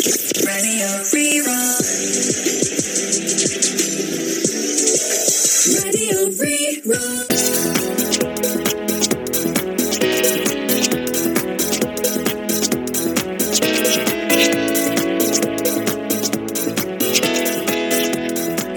Radio Rí-Rá. Radio Rí-Rá.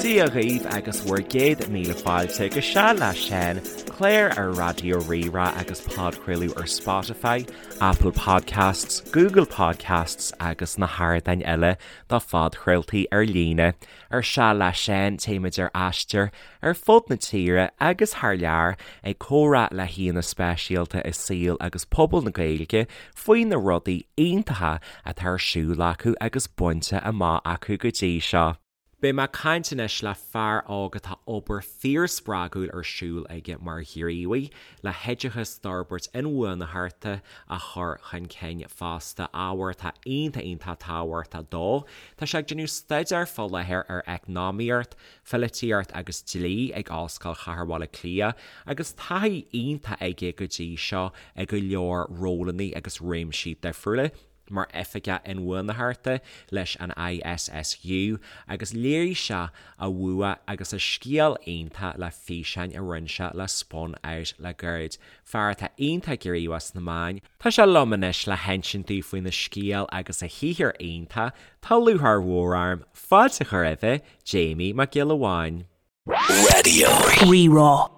Dia dhaoibh agus bhur gcéad míle fáilte go Seal le Seán, clár ar Raidió Rí-Rá agus podchraoladh ar Spotify, Apple Podcasts, Google Podcasts agus na hardáin eile do phodchraoltaí ar líne. Ar Seal le Seán, téimid ar aistear ar fud na tíre agus thar lear ag comhrá le haíonna speisialta i saol agus pobal na Gaeilge faoi na rudaí iontacha atá ar siúl acu agus bainte amach acu go dtí seo. Beidh mé ag caint anois le fear óg atá obair fíorspreagúil ar siúl aige mar ghníomhaí le hoideachas d'fhorbairt inbhuanaitheachta a chur chun cinn fosta, ábhar atá iontach iontach tábhachtach dó. Tá sé ag déanamh staidéir fá láthair ar Eacnamaíocht, Pholaitíocht agus Dlí ag Ollscoil Chathair Bhaile Átha Cliath agus taithí iontach aige go dtí seo i go leor rólanna agus réimsí difriúla. mar Oifigeach Inbhuanaitheachta leis an ISSU agus léirigh sé a bhua agus a scil iontach le físeáin a rinne sé le Spun Out le gairid. Fear atá iontach gníomhach sna meáin, tá sé liom anois le hinsint dúinn faoina scéal agus a shaothar iontach, tá lúcháir mhór orm fáilte a chur roimhe, Jamie Mac Giolla Bháin. Radio. Rí-Rá.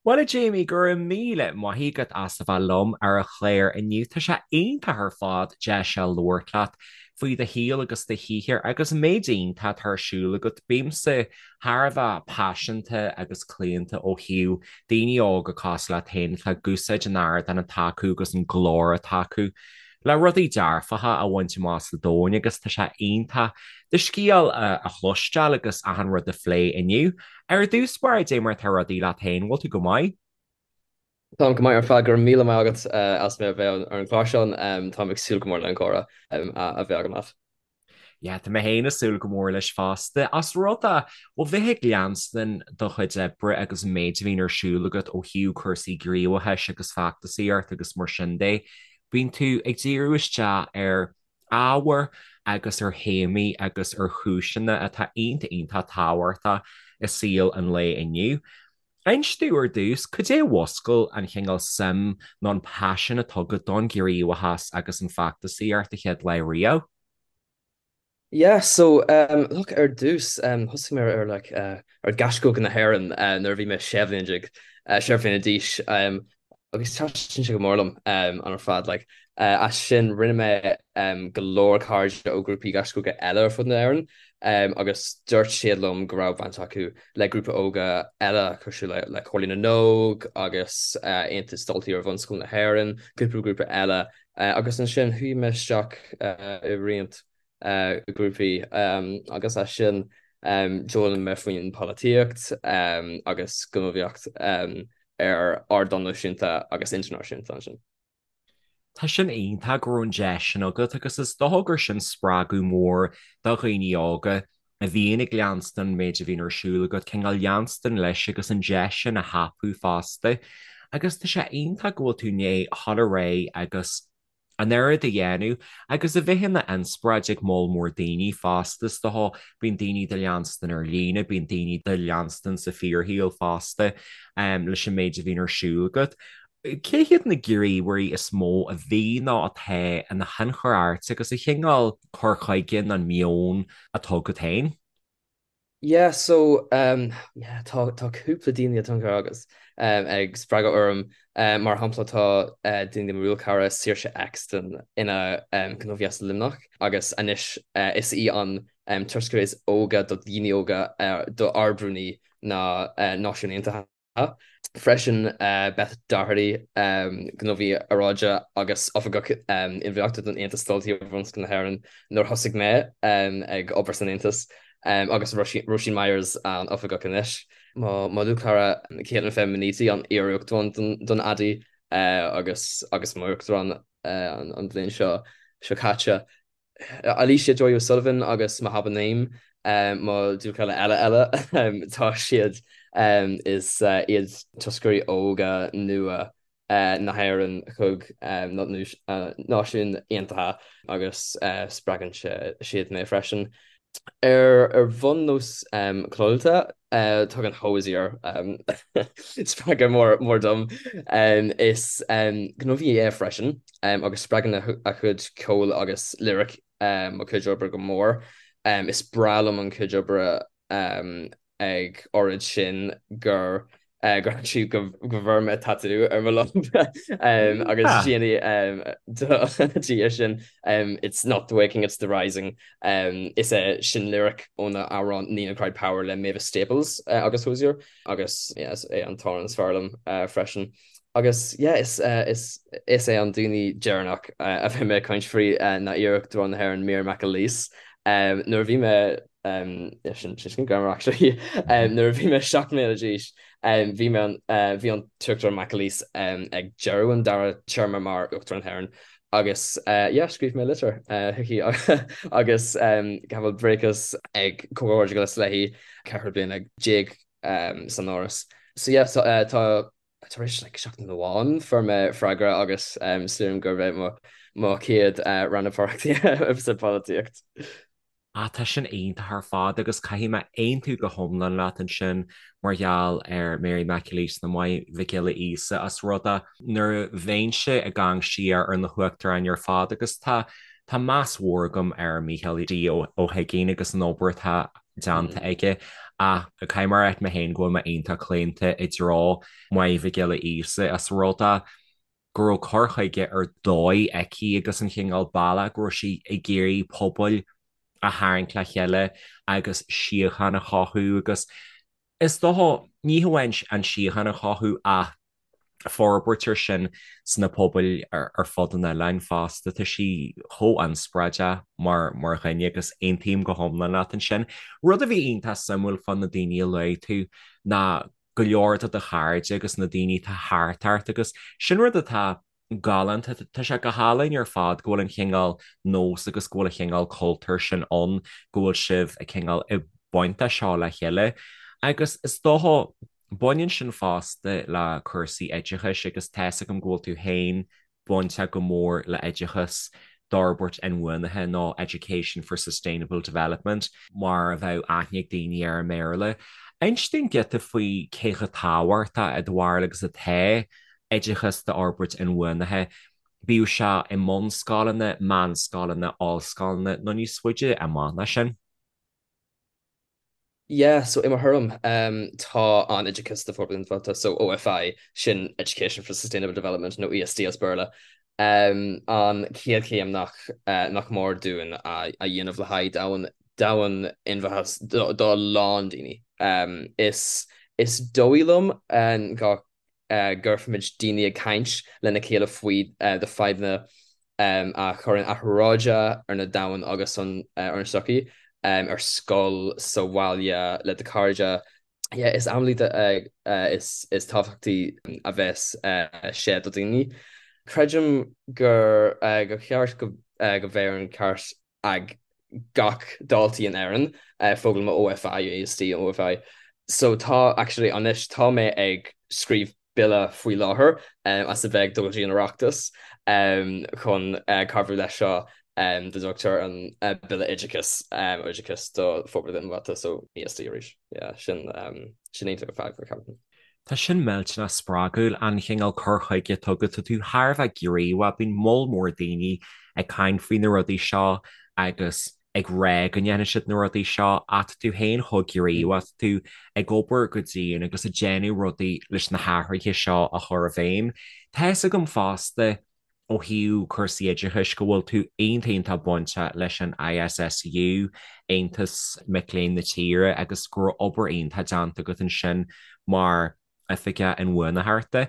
Bhuel a Jamie, go raibh míle maith agat as a bheith liom ar an chlár inniu. Tá sé iontach ar fad deis a labhairt leat faoi do shaol agus do shaothar agus an méid iontach atá ar siúl agat. Bímse thar a bheith paiseanta agus claonta ó thaobh daoine óga cosúil leat féin atá ag úsáid an ardáin atá acu agus an glór atá acu le rudaí dearfacha a bhaint amach sa domhan agus tá sé iontach do scéal a chloisteáil agus achan rud a phlé inniu. Ar dtús báire, dé mar atá rudaí leat féin, bhfuil tú go maith? Táim go maith ar fad, go raibh míle maith agat as mé a bheith ar an gclár seo, táim ag súil go mór le an comhrá a bheith agam leat. Yeah, tá mé féin ag súil go mór leis fosta. Ós rud é, ó bheith ag leanstan do chuid oibre agus an méid a bhíonn ar siúl agat ó thaobh cúrsaí gníomhachais agus feachtasaíocht agus mar sin de, bíonn tú ag díriú isteach ar ábhair agus ar théamaí agus ar chúiseanna atá iontach iontach tábhachtach i saol an lae inniu. Inis domh ar dtús, cad é a mhúscail an chineál suim nó an paisean atá agat don ghníomhachas agus an feachtasaíocht a chéad lá riamh? Yeah, so um, look, ar dtús um, thosaigh mé ar like, uh, ar Gaisce Óga na hÉireann uh, nuair a bhí mé sé bhliain déag uh, sé bhliana d'aois um, agus thaitin sé go mór liom um, an ar fad like, uh, as sin rinne mé um, go leor cairde ó grúpaí Gaisce Óga eile ar fud na hÉireann um, agus dúirt siad liom go raibh baint acu le grúpa óga eile cosúil le, le Comhairle na nÓg agus uh, Aontas Daltaí Iar-Bhunscoile na hÉireann, cúpla grúpa eile Agus ansin chuaigh mé isteach i roinnt grúpaí agus as sin d'fhoghlaim mé faoin polaitíocht agus gníomhaíocht ar ardán náisiúnta agus idirnáisiúnta ansin. Tá sin iontach go raibh an deis sin agat agus is dócha gur sin spreagadh mór do dhaoine óga a bhíonn ag leanstan an méid a bhíonn ar siúl agat, cineál leanstan leis agus an deis sin a thapú fosta. Agus tá sé iontach go bhfuil tú i ndiaidh dhul ar aghaidh agus an oiread a dhéanamh agus a bheith ina inspioráid ag moll mór daoine fosta. Is dócha, bíonn daoine do leanstan ar líne, bíonn daoine do leanstan sa fíorshaol fosta leis an méid a bhíonn ar siúl agat. Cé hiad na gníomhairí is mó a bhí nó atá ina thionchar ort agus an chineál cur chuige nó an meon atá agat féin? Yeah, so um, yeah, tá tá cúpla daoine a tionchar agus um, ag spreagadh orm. Um, mar shampla tá uh, duine de mo dhlúthchara Saoirse Exton ina um, gníomhaí as Luimneach agus anois uh, is í an um, toscaire is óga do dhaoine óga uh, do Ard-Rúnaí na uh, Náisiún Aontaithe. Freisin, Beth Doherty, gníomhaí aeráide agus Oifigeach Inbhuanaitheachta don Aontas Daltaí Iar-Bhunscoile na hÉireann nuair a thosaigh mé ag obair san Aontas, agus Róisín Myers, an Oifigeach anois. Mo dhlúthchara Caitlin Minniti, an iar-Uachtarán don ADDI agus agus m'Uachtarán an bhliain seo caite. Alicia Joy O'Sullivan agus Mahaba Naeem, mo dhlúthchara eile eile, tá siad, is iad toscairí óga nua. na hÉireann chuig na Náisiúin Aontaithe agus spreagann siad mé freisin. Ar bhonn nós ceolta, tugann Hozier spreagadh mór dom. Is gníomhaí é freisin agus spreagann a chuid ceoil agus lyric mo chuid oibre go mór. Is breá liom an chuid oibre ag oiread sin gur gur actually go go bhfuair mé tatú ar mo lámh agus déanaí di sin It's not the waking, it's the rising. Is é sin lyric óna amhrán Nina Cried Power le Mavis Staples agus Hozier agus yeah, is é an t-amhrán is fearr liom freisin. Agus yeah, is is is é an duine deireanach a bheidh mé ag caint faoi ná iar-Uachtarán na hÉireann Mary McAleese. Nuair a bhí mé sin sin greannmhar actually nuair a bhí mé 7 mbliana d'aois bhí mé bhí an tUachtarán McAleese ag deireadh an dara téarma mar Uachtarán na hÉireann agus yeah scríobh mé litir chuici agus gabháil buíochas ag comhghairdeas léi 14 bliana san Áras. So yeah tá tar éis like seachtain amháin fuair mé freagra agus sílim gurb é mo mo chéad rannpháirtíocht sa pholaitíocht. Ah, tá sin iontach ar fad agus caithfidh mé aontú go hiomlán leat ansin mar gheall ar Mary McAleese nó Máire Mhic Giolla Íosa as rud é nuair a bheinnse ag amharc siar ar na huachtaráin ar fad agus tá tá meas mhór agam ar Mícheál D Ó hUiginn agus an obair atá déanta aige ach caithfidh mé a rá mé féin go bhfuil mé iontach claonta i dtreo Máire Mhic Giolla Íosa as rud é go raibh cur chuige ar dóigh aici agus an chineál bealach go raibh sí ag iarraidh pobail a tharraingt le chéile agus síocháin a chothú agus is dócha, ní hamháin an síocháin a chothú ach forbairt ar sin sna pobail ar fud an oileáin fosta. Tá sí chomh inspioráideach mar mar dhuine agus aontaím go hiomlán leat ansin. Rud a bhí iontach suimiúil fá na daoine a luaigh tú ná go leor de do chairde agus na daoine atá thart ort agus sin rud atá galánta. Tá sé go hálainn ar fad go bhfuil an chineál nós agus go bhfuil an chineál cultúr sin ann, go bhfuil sibh ag cineál ag baint de seo le chéile. Agus is dócha, baineann sin fosta le cúrsaí oideachais agus tá 'fhios agam go bhfuil tú féin bainteach go mór le oideachas d'fhorbairt inbhuanaithe nó Education for Sustainable Development, mar a bheadh aithne ag daoine air i mBéarla. Inis dúinn giota faoi cé chomh tábhachtach i do bharúil agus atá oideachas d'fhorbairt inbhuanaithe, bíodh sé i mbunscoileanna, meánscoileanna, ollscoileanna nó níos faide amach ná sin. Yeah, so i mo thuairim, tá an oideachas do forbairt inbhuanaithe, so OFI, sin Education for Sustainable Development nó ESD as Béarla, an chéad chéim nach nach mór dúinn a dhéanamh le haghaidh domhan domhan inbhuanaithe do a lán daoine. Is is dóigh liom go gcuirfimid daoine ag caint lena chéile faoi na fadhbanna a chuireann athrú aeráide ar na domhan agus an ar an sochaí, ar scoil, sa bhaile, le do chairde. Yeah, is amhlaidh is is tábhachtaí a bheas sé do daoine. Creidim gur gur cheart go go bheadh an ceart ag gach daltaí in Éirinn foghlaim OFI, ESD OFI. So tá actually anois tá mé ag scríobh bille faoi láthair as a bheith ag dul go dtí an Oireachtas chun cabhrú leis seo dá dtugtar an Bille Oideachais Oideachas do Forbairt Inbhuanaithe so ESD arís. Yeah, sin sin iontach ar fad ceapaim. Tá sin millteanach spreagúil, an chineál cur chuige atá agat, tá tú thar a bheith gníomhach, bíonn moll mór daoine ag caint faoi na rudaí seo agus ag rá go ndéanfaidh siad na rudaí seo ach tá tú féin chomh gníomhach, tá tú ag obair go dian agus ag déanamh rudaí leis na hathruithe seo a chur i bhfeidhm. Tá fhios agam fosta ó thaobh cúrsaí oideachais go bhfuil tú iontach iontach bainteach leis an ISSU, Aontas Mic Léinn na tíre, agus go raibh obair iontach déanta agat ansin mar Oifigeach Inbhuanaitheachta.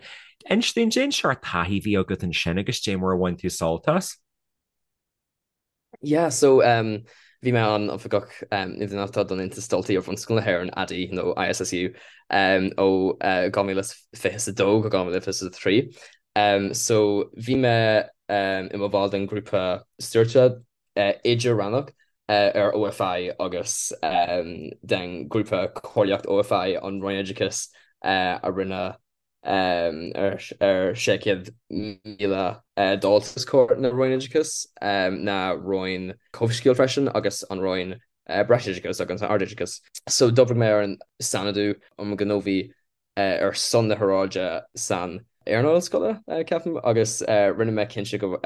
Inis dúinn, cén seort taithí a bhí agat ansin agus dé mar a bhain tú sult as? Yeah, so um, bhí mé an oifigeach um, inbhuanaitheachta don Aontas Daltaí ar Bhunscoil na hÉireann, ADDY nó ISSU, um, ó uh, 2022 go 2023. Um, so bhí mé um, i mo bhall den grúpa stiúrtha uh, idir-rannach uh, ar OFI agus um, den grúpa comhairleach OFI an Roinn Oideachais uh, a rinne. Ar 600,000 dalta os comhair na Roinn Oideachais, na Roinn Comhshaoil freisin agus an Roinn Breisoideachais agus an Ardoideachais. So d'oibrigh mé ar an Sainordú um Ghníomhú ar son na hAeráide san earnáil scoile, ceapaim, agus rinne mé cinnte go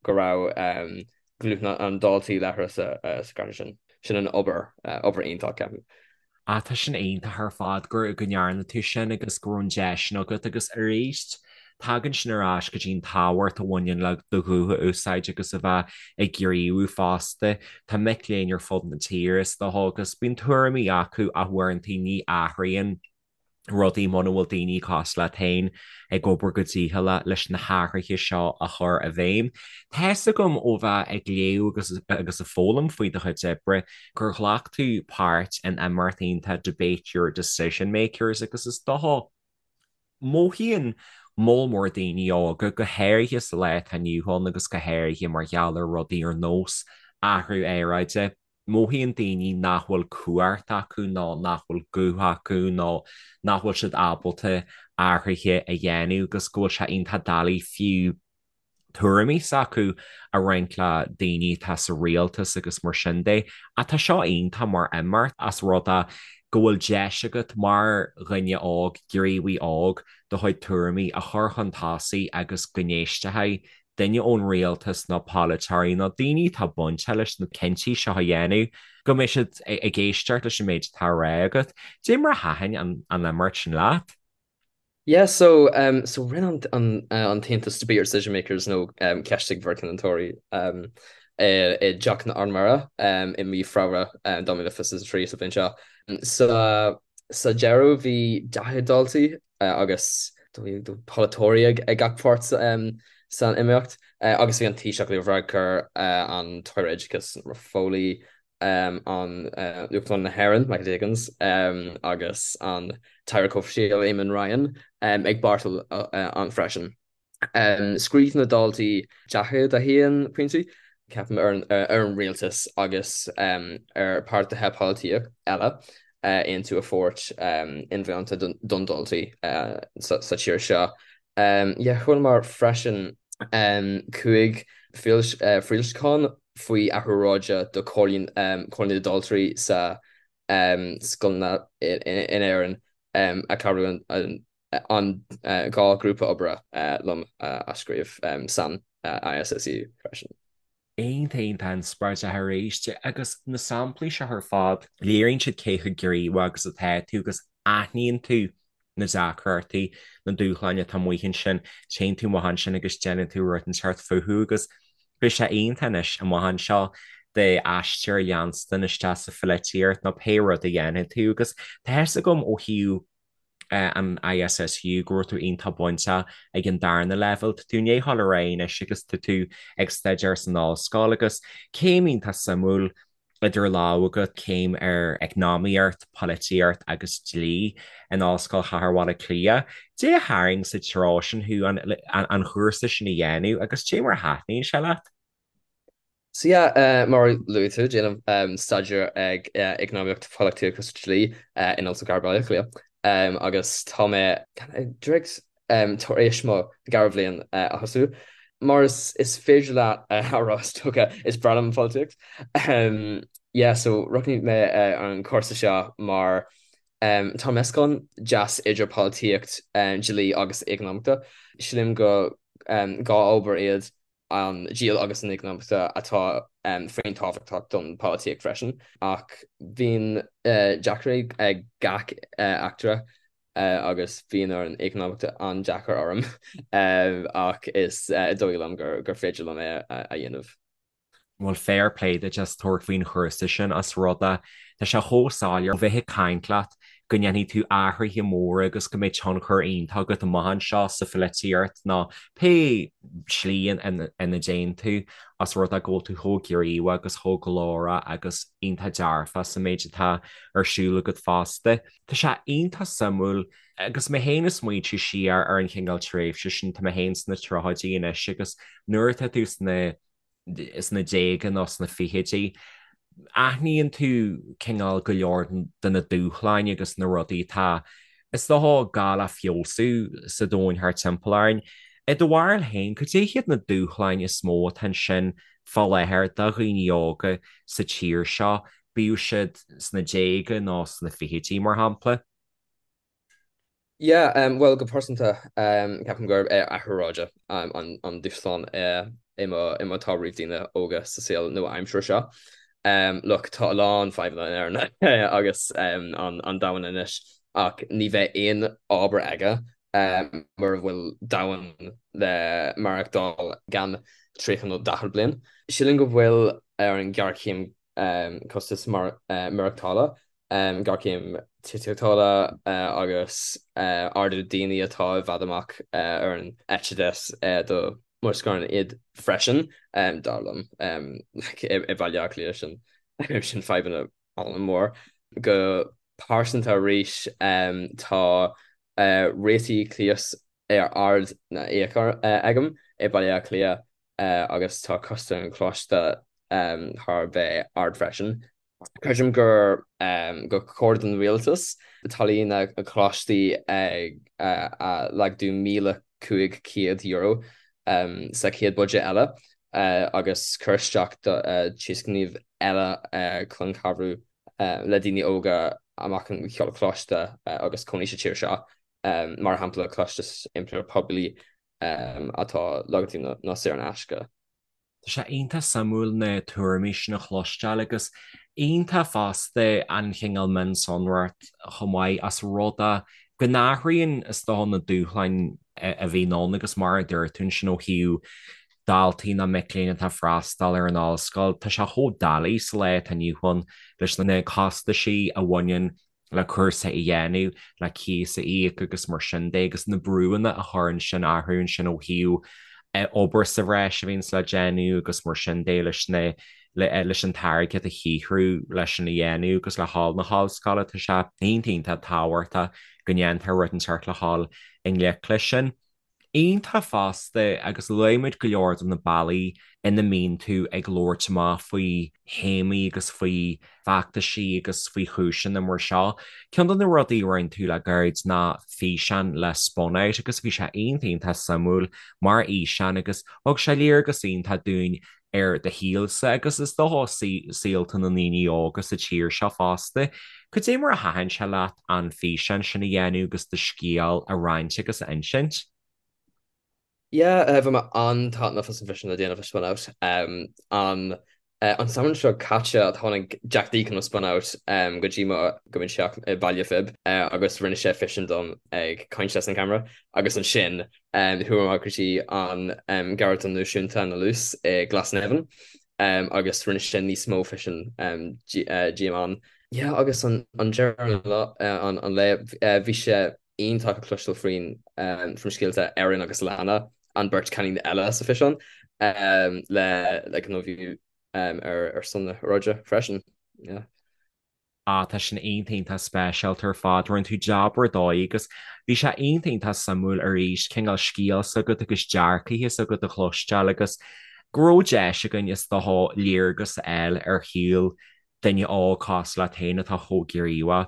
raibh guth na ndaltaí láithreach sa gcruinniú sin. Sin an obair, obair iontach, ceapaim. Ah tá sin iontach ar fad go go ndearna tú sin agus go raibh an deis sin agat agus arís tagann sin ar ais go dtí an tábhacht a bhaineann le do ghuth a úsáid agus a bheith ag gníomhú fosta. Tá mic léinn ar fud na tíre is dócha agus bíonn tuairimí acu ach uaireanta ní athraíonn rudaí muna bhfuil daoine cosúil leat féin ag obair go dícheallach leis na hathruithe seo a chur i bhfeidhm. Tá fhios agam ó bheith ag léamh agus agus ag foghlaim faoi do chuid oibre gur ghlac tú páirt in imeacht iontach Debate Your Decision Makers agus is dócha mothaíonn moll mór daoine óga, go háirithe sa lá atá inniu ann agus go háirithe mar gheall ar rudaí ar nós athrú aeráide, Mothaíonn daoine nach bhfuil cumhacht acu nó nach bhfuil guth acu nó nach bhfuil siad ábalta athruithe a dhéanamh agus go bhfuil sé iontach doiligh fiú tuairimí s'acu a roinnt le daoine atá sa rialtas agus mar sin de. Ach tá seo iontach mar imeacht as rud é go bhfuil deis agat mar dhuine óg, gníomhaí óg, do chuid tuairimí a chur chun tosaigh agus go n-éistfidh duine ón rialtas nó polaiteoirí nó daoine atá bainteach leis na cinntí seo a dhéanamh, go mbeidh siad ag éisteacht leis an méid atá á rá agat. Cad é mar a thaitin an imeacht sin leat? Yeah, so um, so rinne an, an, uh, an tAontas Debate Your Decision Makers nó um, Ceistigh bhur gcinneoirí um, i, i dTeach na Ardmhéara um, i mí Feabhra um, 2023 sa bhliain seo. Sa, sa deireadh bhí 40 daltaí agus polaiteoirí ag gach páirt san imeacht agus bhí an Taoiseach Leo Varadkar, an tAire Oideachais Norma Foley, an Uachtarán na hÉireann Michael D Higgins agus an tAire Comhshaoil Eamon Ryan ag páirteach ann freisin. Scríobh na daltaí 41 pointí, ceapaim, ar an rialtas agus ar páirtithe polaitíochta eile aontú a thabhairt inmheánta don daltaí sa tír seo. Yeah, chualamar freisin 5 foilseachán faoi athrú aeráide do Chomhairle na Daltraí sa scoileanna in Éirinn a chabhrú an an 2 grúpa oibre liom a scríobh san ISSU freisin. Iontach iontach inspioráideach arís agus na samplaí seo ar fad, léiríonn siad cé chomh gníomhach agus atá tú agus aithníonn tú na deacrachtaí, na dúshláin atá amuigh ansin, téann tú amach ansin agus déanann tú rud inteacht fúthu agus beidh sé iontach anois amach anseo d'aistear a leanstan isteach sa pholaitíocht nó pé rud a dhéanfaidh tú agus tá a fhios agam ó thaobh an ISSU, go raibh tú iontach bainteach ag an darna leibhéal. Tá tú i ndiaidh dul ar aghaidh anois agus tá tú ag staidéar san ollscoil agus céim iontach suimiúil idir lámha agat, céim ar eacnamaíocht, polaitíocht agus dlí in Ollscoil Chathair Bhaile Átha Cliath. Cad é a tharraing sa treo sin thú an chúrsa sin a dhéanamh agus cad é mar a thaitníonn sé leat? So yeah, mar a luaigh tú, déanaim staidéar ag Eacnamaíocht, Polaitíocht agus Dlí in Ollscoil Chathair Bhaile Átha Cliath agus tá mé díreach tar éis mo dhara bhliain a thosú. Mar is féidir leat a rá is dócha, is breá liom an pholaitíocht. Yeah, so roghnaigh mé an cúrsa seo mar tá meascán deas idir polaitíocht, dlí agus eacnamaíochta. Sílim go 2 ábhar iad an dlí agus an eacnamaíochta atá fíorthábhachtach don pholaitíocht freisin, ach bíonn deacrachtaí ag gach eachtra agus bíonn an eacnamaíocht an-deacair orm ach is dóigh liom gur féidir liom é a dhéanamh. Bhuel, fair play duit as tabhairt faoin chúrsa sin as rud é, tá sé chomh soiléir ó bheith ag caint leat go ndéanfaidh tú athruithe móra agus go mbeidh tionchar iontach agat amach anseo sa pholaitíocht nó pé slí ina dtéann tú as rud é go bhfuil tú chomh gníomhach agus chomh glórach agus iontach dearfach sa méid atá ar siúl agat fosta. Tá sé iontach suimiúil agus mé féin ag smaointiú siar ar an chineál tréimhse sin, tá mé féin sna tríochaidí anois agus nuair atá tú sna sna déaga nó sna fichidí, aithníonn tú cineál go leor de na dúshláin agus na rudaí atá. is dócha, gá le feabhsú sa domhan thart timpeall orainn. I do bharúil féin, cad é hiad na dúshláin is mó atá ansin fá láthair do dhaoine óga sa tír seo, bíodh siad sna déaga nó sna fichidí, mar shampla? Yeah, bhuel, go pearsanta, ceapaim gurb é athrú aeráide an dúshlán is mó atá roimh daoine óga sa saol nua-aimseartha seo. Look, tá a lán fadhbanna in Éirinn agus an domhan anois ach ní bheidh aon obair aige mura bhfuil domhan le maireachtáil i gceann 30 nó 40 bliain. Sílim go bhfuil ar an ghéarchéim costas maireachtála géarchéim tithíochta agus ardú daoine atá i bhfad amach ar an eite dheis do mo scor iad freisin, dar liom. I Baile Átha Cliath sin sin fadhbanna an-mhór. Go pearsanta arís tá rátaí cíos ar ard na íoc agam i Baile Átha Cliath agus tá costas an choláiste thar a bheith ard freisin. Creidim gur gur chóir don rialtas táillí na gcoláistí a laghdú €1,500 sa chéad buidéad eile agus cur isteach tionscnaimh eile chun cabhrú le daoine óga amach an choláiste agus cónaí sa tír seo, mar shampla costas iompair poiblí atá laghdaithe nó saor in aisce. Tá sé iontach suimiúil na tuairimí sin a chloisteáil agus iontach fosta an chineál mionsonracht chomh maith as rud é go n-athraíonn is dócha na dúshláin a bhíonn ann agus mar a dúirt tú ansin ó thaobh daltaí nó mic léinn atá ag freastal ar an ollscoil, tá sé chomh doiligh sa lá atá inniu ann leis na costaisí a bhaineann le cúrsa a dhéanamh, le cíos a íoc agus mar sin de agus na brúanna a chuireann sin orthu ansin ó thaobh obair sa bhreis a bhíonns le déanamh agus mar sin de leis na leis an t-airgead a shaothrú leis sin a dhéanamh agus le dhul na hollscoile. Tá sé iontach iontach tábhachtach go ndéantar rud inteacht le dhul i ngleic leis sin. Iontach fosta agus luaigh muid go leor de na bealaí ina mbíonn tú ag labhairt amach faoi théamaí agus faoi fheachtaisí agus faoi chúiseanna mar seo. Ceann de na rudaí a rinne tú le gairid ná físeán le Spun Out agus bhí sé iontach iontach suimiúil mar fhíseán agus thug sé léargas iontach dúinn ar do shaolsa agus is dócha saolta na ndaoine óga sa tír seo fosta. Cad é mar a thaitin sé leat an físeán sin a dhéanamh agus do scéal a roinnt agus a insint? Yeah, bhain mé an-taitneamh as an bhfíseán a dhéanamh le Spun Out. An an samhradh seo caite tháinig Jack Deacon ó Spun Out go dtí mo go mo theach i Baile Phib agus rinne sé físeán dom ag caint leis an camera agus ansin Chuaigh mé go dtí an Gharraí Náisiúnta na Lus i Glasnevin agus rinne sé níos mó físean díom ann. Yeah agus an deireadh an lae bhí sé iontach a chloisteáil faoin faoin scéalta Erin agus Lana, an beirt cailín eile sa físeán, le le gníomhú ar ar son na haeráide freisin. Yeah. Ah, tá sin iontach iontach speisialta ar fad. Rinne tú jab ar dóigh agus bhí sé iontach iontach suimiúil arís cineál scéal s'agat agus dearcaithe s'agat a chloisteáil agus go raibh deis againn is dócha léargas a fháil ar shaol duine óg cosúil leat féin atá chomh gníomhach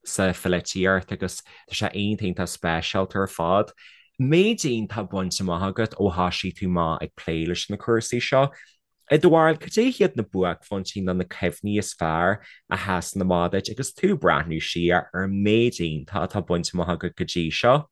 sa pholaitíocht agus tá sé iontach iontach speisialta ar fad. Méid iontach bainte amach agat ó thoisigh tú amach ag plé leis na cúrsaí seo. I do bharúil, cad é hiad na buaicphointí nó na cuimhní is fearr a sheasann amach duit agus tú ag breathnú siar ar an méid iontach atá bainte amach agat go dtí seo?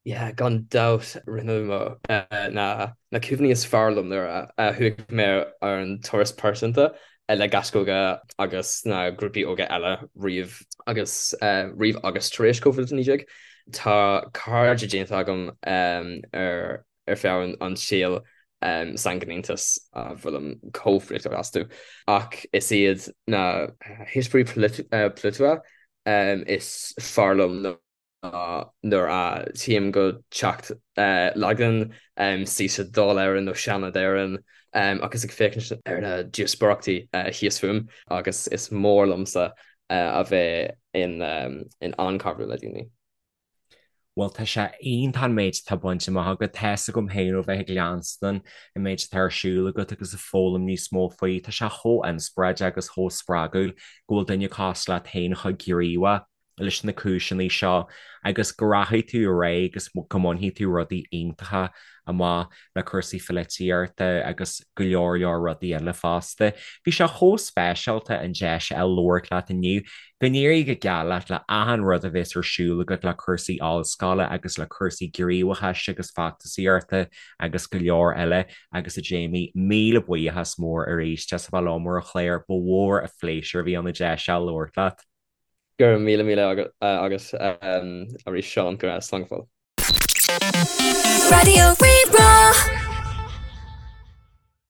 Yeah, gan dabht, rinne mo na na cuimhní is fearr liom nuair a chuaigh mé ar an turas pearsanta le Gaisce Óga agus na grúpaí óga eile roimh agus roimh agus tar éis Covid-19. Tá cairde déanta agam ar ar feadh an tsaoil san ghníomhas a bhfuilim chomh bhuíoch astu. Ach is iad na heispéirí polaitiúla is fearr liom ná nuair a théim go teach Laighean, suí sa Dáil Éireann nó Seanad Éireann agus ag féachaint ar na díospóireachtaí thíos fúm agus is mór liomsa a bheith in ann cabhrú le daoine. Bhuel, tá sé iontach an méid atá bainte amach agat. Tá's agam féin ó bheith ag leanstan an méid atá ar siúl agat agus ag foghlaim níos mó faoi. Tá sé chomh inspioráideach agus chomh spreagúil go bhfuil duine cosúil leat féin chomh gníomhach. leis na cúiseanna seo agus go rachaidh tú ar aghaidh agus go mbainfidh tú rudaí iontacha amach le cúrsaí polaitíochta agus go leor leor rudaí eile fosta. Bhí sé chomh speisialta an deis a fháil labhairt leat inniu. Go n-éirí go geal leat le achan rud a bheas ar siúl agat le cúrsaí ollscoile agus le cúrsaí gníomhachais agus feachtasaíochta agus go leor eile. Agus a Jamie, míle buíochas mór arís as a bheith liom ar an chlár, ba mhór an phléisiúr a bhí ann an deis a fháil labhairt leat. Go raibh míle míle agat arís Seán, go raibh, slán go fóill. Raidió Rí-Rá.